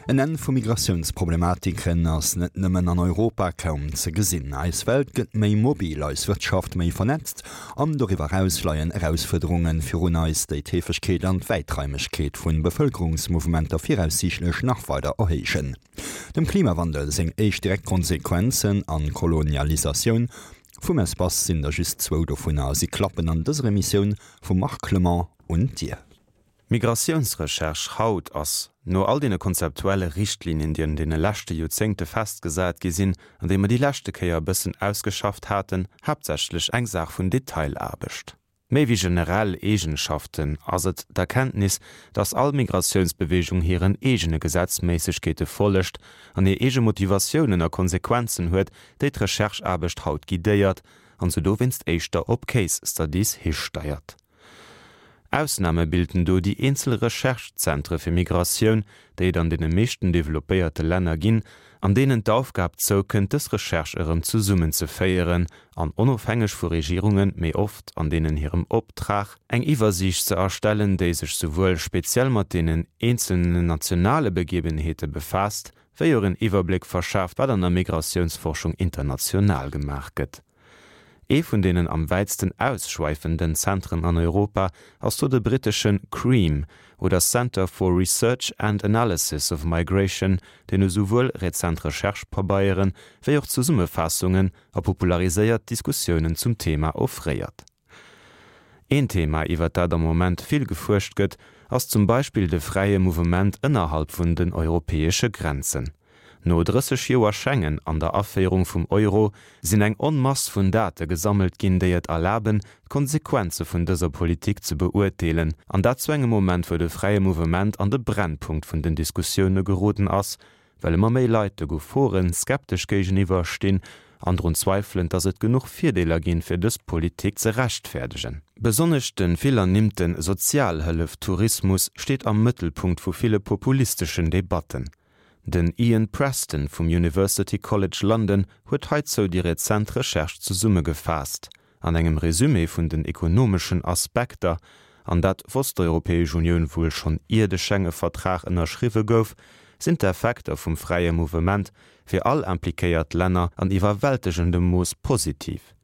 En Enn vu Migratiounsproblematiken ass net nëmmen an Europa kaum ze gesinn. Eis Welt gëtt méi mobil, eis Wirtschaft méi vernetzt an doriwwer eraus leien Erausfuerderunge virun eis, déi d'Heefegkeet an d'Wäitraimegkeet vu Bevëlkerungsmouvementer viraussiichtlech nach weider erhéijen. Dem Klimawandel seng éischt direkt Konsequenzen an d'Kolonialisatioun vum Espace sinn der just zwou dovunner. Si klappen an dëser Emissioun vum Marc Clement un d'Dier. D'Migratiounsrecherche haut ass, no all deene konzeptuelle Richtlinien, déi an deene leschte Joerzéngte festgesat gi sinn an déi mer déi leschte Kéier e bëssen ausgeschafft haten, haaptsächlech eng Saach vun Detailaarbecht. Méi wéi generell Eegenschaften ass et d'Erkenntnis, dass all Migratiounsbewegung hiren eegene Gesetzméissegkeete follegt an hir eege Motivatiounen a Konsequenzen huet, déi d'Rechercheaarbecht haut guidéiert an se dowéinst éischter op Case Studies histeiert. Ausname bilden do déi eenzel Recherche-Zentre fir Migratioun, déi et an deene meeschten developpéierte Länner ginn, an deenen d'Aufgab zoukënnt, dës Recherche erëm zesummenzeféieren an, onofhängeg vu Regierungen, méi oft an deenen hirem Optrag, eng Iwwersiicht ze erstellen, déi sech souwuel speziell mat deenen eenzelnen nationale Begebenheete befaasst, wéi och en Iwwerbléck verschaaft, wat an der Migratiounsforschung international gemaach gëtt. Ee vun deenen am wäitsten ausschweifenden Zentren an Europa ass do de brittesche CREAM oder Centre for Research and Analysis of Migration, deen esouwuel rezent Recherche-Pabeiere wéi och Zesummefaassungen a populariséiert Diskussiounen zum Thema offréiert. Een Thema, iwwer dat am Moment vill gefuerscht gëtt, ass zum Beispill de fräie Mouvement ënnerhalb vun den europäesche Grenzen. No 30 Joer Schengen an der Aféierung vum Euro sinn eng Onmass vun Date gesammelt ginn, déi et erlaben, d'Konsequenze vun dëser Politik ze beurteelen, an dat zu engem Moment, wou de fräie Mouvement an de Brennpunkt vun den Diskussioune geroden ass, well ëmmer méi Leit de Gefore skeptesch géigeniwwer stinn an drun zweifelen, dass et genuch Virdeeler ginn, fir dës Politik ze rechtfäerdegen. Besonnesch de vill ernimmte Sozialhëllef-Tourismus steet am Mëttelpunkt vu ville populisteschen Debatten. Den Ian Preston vum University College London huet heizou déi rezent Recherche zesummegefaasst an engem Resumé vun den ekonomeschen Aspekter, an dat wosst d'Europäesch Unioun wuel schonn ier de Schenge-Vertrag ënnerschriwwe gouf, sinn d'Effekter vum fräie Mouvement fir all impliquéiert Länner an iwwerwältegendem Mooss positiv.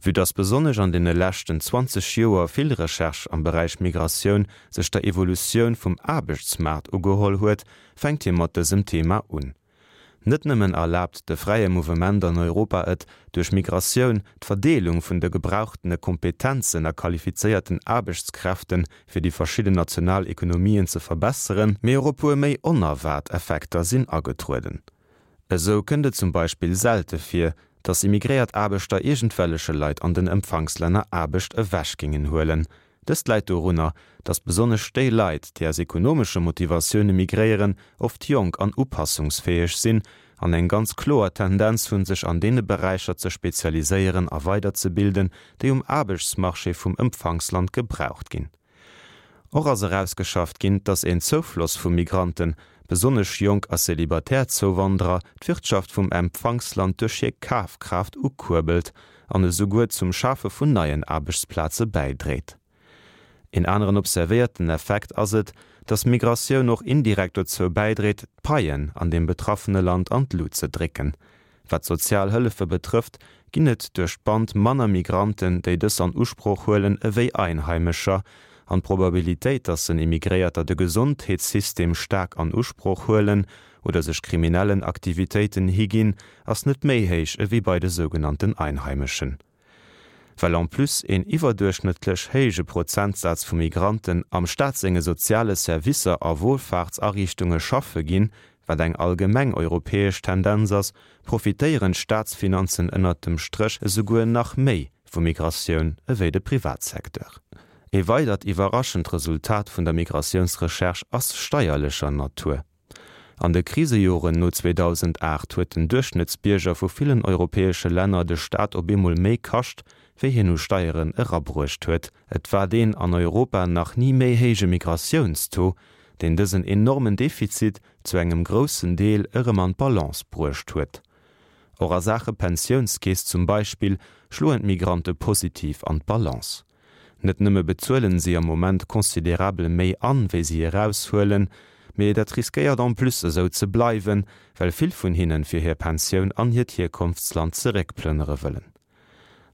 Vue dass besonnesch an deene leschten 20 Joer vill Recherche am Beräich Migratioun sech der Evolutioun vum Aarbechtsmaart ugeholl huet, fänkt hie mat dësem Thema un. Net nëmmen erlaabt de fräie Mouvement an Europa et, duerch Migratioun d'Verdeelung vun de gebrauchtene Kompetenzen a qualifizéierten Aarbechtskräfte fir déi verschidden national Ekonomien ze verbesseren, mee och e puer méi onerwaart Effekter sinn agetrueden. Esou kënnt et zum Beispill selte vir, datt immigréiert Aarbechter iergendwelleche Leit an den Empfangslänner Aarbecht ewech géingen huelen. Dëst läit dorunner, datt besonnesch déi Leit, déi aus ekonomesche Motivatioune migréieren, oft jonk an upassungsfäeg sinn an eng ganz kloer Tendenz hunn, sech an deene Beräicher ze spezialiséieren a weiderzebilden, déi um Aarbechtsmarché vum Empfangsland gebraucht ginn. Och ass erausgeschafft ginn, dass een Zoufloss vu Migranten, besonnesch jonk a celibatär Zouwanderer, d'Wirtschaft vum Empfangsland duerch hir Kafkraaft ukuerbelt an esouguer zum Schafe vun neien Aarbechtsplaze bäidréit. Een aneren observéierten Effekt ass et, dass Migratioun och indirekt dozou bäidréit, d'Paien an deem betraffene Land an d'Lut ze drécken. Wat d'sozial Hëllefe betrëfft, ginn et duerch d'Band manner Migranten, déi dës an Usproch huelen, ewéi Einheimescher. An d'Probabilitéit, datt en Immigréierter de Gesondheetssystem staark an Usproch huelen oder sech kriminellen Aktivitéiten higinn, ass net méi héich ewéi bei de sougenannten Einheimeschen. Well en plus een iwwerduerchschnëttlech héije Prozentsaz vu Migranten am Staat senge soziale Servicer a Wohlfahrtsariichtunge schaffe ginn, wat eng allgemeng europäesch Tendenz ass, profitéieren d'Staatsfinanzen ënnert dem Stréch esouguer nach méi vu Migratioun ewéi de Privatsecteur. E weidert iwwerraschend Resultat vun der Migratiounsrecherche ass steierlecher Natur. An de Krisejoren no 2008 huet den Duerchschnëttsbierger vu villen europäesche Länner de Staat op eemol méi kascht, wéi hien u Steieren erabruecht huet. Et war deen an Europa nach ni méi héije Migratiounstaux, deen dësen enormen Defizit zu engem groussen Deel erëm an d'Balance bruecht huet. Och a Saache Pensiounskeess zum Beispill schloen d'Migrante positiv an d'Balance. Net nëmme bezuelen si am Moment considerabel méi an, wéi si eraushuelen, Mee dat riskéiert en plus esou ze bleiwen, well vill vun hinnen fir hir Pensioun an hiert Hierkonftsland zeréckplënnere wëllen.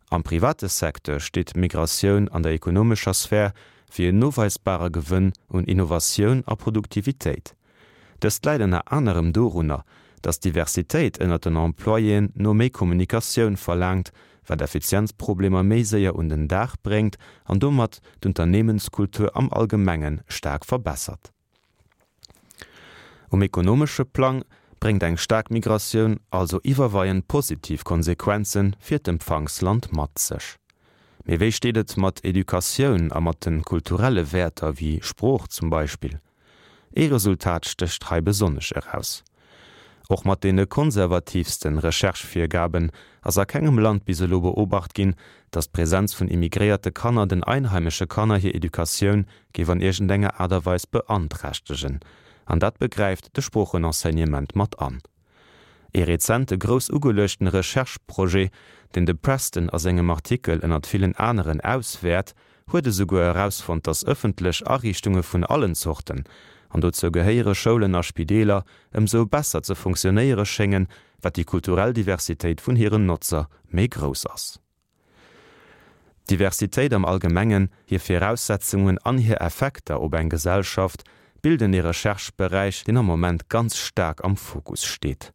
Am private Secteur steet d'Migratioun an der ekonomescher Sphär fir en noweisbare Gewënn un Innovatioun a Produktivitéit. Dëst läit ënner anerem dorunner, datt d'Diversitéit ënnert den Employéen no méi Kommunikatioun verlaangt, wat Effizienzproblemer méi séier un den Dag bréngt an domat d'Unternehmenskultur am Allgemenge staark verbessert. Um ekonomesche Plang bréngt eng staark Migratioun also iwwerweiend positiv Konsequenze fir d'Empfangsland mat sech. Mee wéi steet et mat Educatioun a mat de kulturelle Wäerter wéi Sprooch zum Beispill? Ee Resultat stécht hei besonnesch eraus, Och mat deene konservatiivste Recherche-Virgaben ass a kengem Land bis elo beobacht ginn, datt d'Präsenz vun immigréierte Kanner den einheimesche Kanner hir Educatioun géif an iergendenger Aart a Weis beanträchtegen. An dat begräift de Sproochenenseignement mat an. Ee rezente grouss ugeluechten Recherche-Projet, deen de Preston a sengem Artikel ënnert villen aneren auswäert, huet esouguer erausfonnt, datt ëffentlech Ariichtunge vun allen Zorten, an dozou gehéiere Schoulen a Spideeler, ëmsou besser ze funktionéiere schéngen, wat déi kulturell Diversitéit vun hiren Notzer méi grouss ass. D'Diversitéit am Allgemengen, hir Viraussetzungen an hir Effekter op eng Gesellschaft bilden ee Recherche-Beräich, deen am Moment ganz staark am Fokus steet.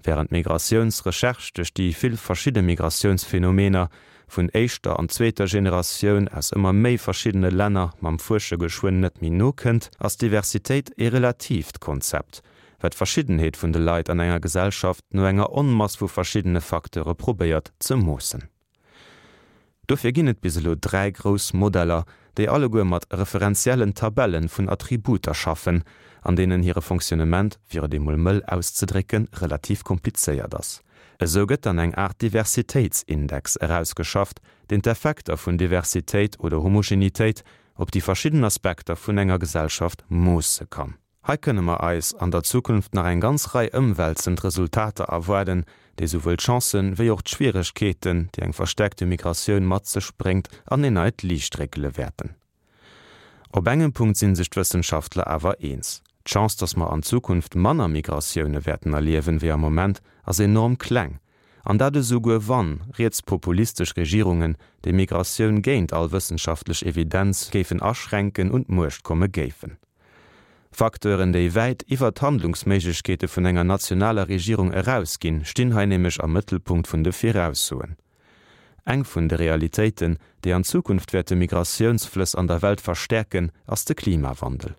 Wärend d'Migratiounsrecherche duerch déi vill verschidde Migratiounsphenomener vun éischter an zweeter Generatioun aus ëmmer méi verschiddene Länner mam Fuersche geschwënn net méi nokënnt, ass Diversitéit ee relatiivt Konzept, wat d'Verschiddenheet vun de Leit an enger Gesellschaft no enger Onmass vu verschiddene Facteure probéiert ze moossen. Dofir ginn et bis elo 3 grouss Modeller, déi alleguer mat referenziellen Tabelle vun Attributer schaffen, an deenen hire Fonctionnement, fir et emol mëll auszedrécken, relativ komplizéiert ass. Esou gëtt dann eng Aart Diversitéitsindex erausgeschafft, deen d'Effekter vun Diversitéit oder Homogenitéit op déi verschidden Aspekter vun enger Gesellschaft moosse kann. Hei kënne mer eis an der Zukunft nach eng ganz Rei ëmwälzend Resultater erwaarden, déi souwuel d'Chancen wéi och d'Schwieregkeeten, déi eng verstärkte Migratioun mat sech bréngt, an een neit Liicht réckele wäerten. Op engem Punkt si sech d'Wëssenschaftler awer eens, D'Chance, dass mer an Zukunft manner Migratioune wäerten erliewen, wéi am Moment, ass enorm kleng, an dat esouguer wann rietspopulistesch Regierungen, déi Migratioun géint all wëssenschaftlech Evidenz géifen aschränken, un d'Muecht komme géifen. Facteuren, déi wäit iwwer d'Handlungsméiglechkeete vun enger nationaler Regierung erausginn, stinn hei nämlech am Mëttelpunkt vun de Viraussoen. Eng vun de Realitéiten, déi an Zukunft wäerte Migratiounsflëss an der Welt verstäerken, ass de Klimawandel.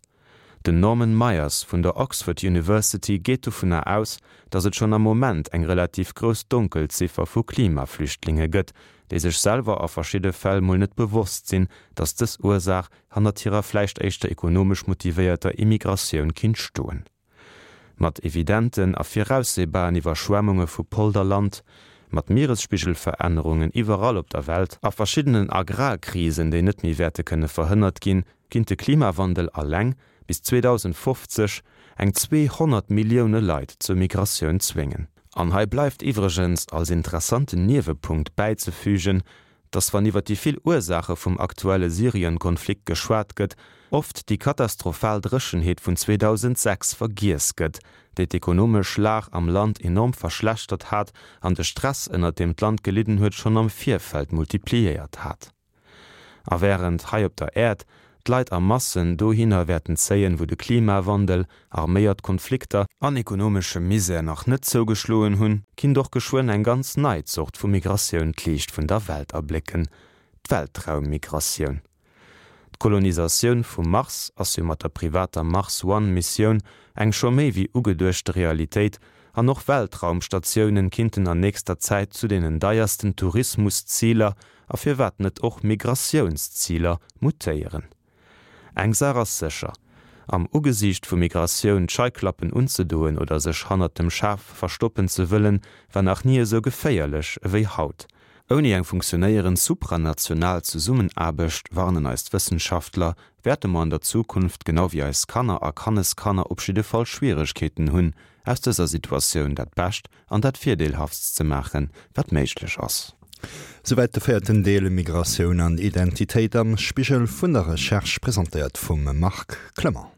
Den Norman Myers vun der Oxford University geet dovunner aus, datt et schonn am Moment eng relativ grouss Donkelziffer vu Klimaflüchtlinge gëtt, déi sech selwer a verschidde Fäll mol net bewosst sinn, datt dës Ursaach hannert hirer vläicht éischter ekonomesch motivéierter Immigratioun kinnt stoen. Mat evidenten a viraussehbaren Iwwerschwemmunge vu Polderland, mat Mieresspigelverännerungen iwwerall op der Welt a verschiddenen Agrarkrisen, déi net méi wäerte kënne verhënnert ginn, kinnt de Klimawandel alleng bis 2050 eng 200 Millioune Leit zur Migratioun zwéngen. An hei bleift iwwregens als interessanten Niewepunkt bäizefügen, dass wann iwwer déi vill Ursaache vum aktuelle Syrien-Konflikt geschwat gëtt, oft déi katastrophal Dréchenheet vun 2006 vergiess gëtt, déi d'ekonomesch Lag am Land enorm verschlechtert hat an de Stress, ënnert deem d'Land gelidden huet, schonn am Virfeld multipliéiert hat. A wärend hei op der Äerd d'Leit a Massen dohinner wäerten zéien, wou de Klimawandel, arméiert Konflikter, an ekonomesche Misär nach net zougeschloen hunn, kinnt och geschwënn eng ganz nei Zort vu Migratioun d'Liicht vun der Welt erblécken, d'Weltraummigratioun. D'Kolonisatioun vum Mars ass jo mat der privater Mars One Missioun eng scho méi wéi ugeduechte Realitéit an och Weltraumstatiounen kinnten an nächster Zäit zu deenen deiersten Tourismusziler a firwat net och Migratiounsziler mutéieren. Eng Saach ass sécher, Am Ugesiicht vu Migratioun d'Scheiklappen unzedoen oder sech hannert dem Schaf verstoppen ze wëllen, war nach ni esou geféierlech ewéi haut. Ouni eng funktionéierend supranational Zesummenaarbecht, warnen eis d'Wëssenschaftler, wäerte mer an der Zukunft, genau wéi eis Kanner a Kanneskanner, op jidde Fall Schwieregkeeten hunn, aus dëser Situatioun dat Bescht an dat Virdeelhaftst ze maachen, wat méiglech ass. Souwäit de véierten Deel Migratioun an Identitéit am Spigel vun der Recherche, presentéiert vum Marc Clement.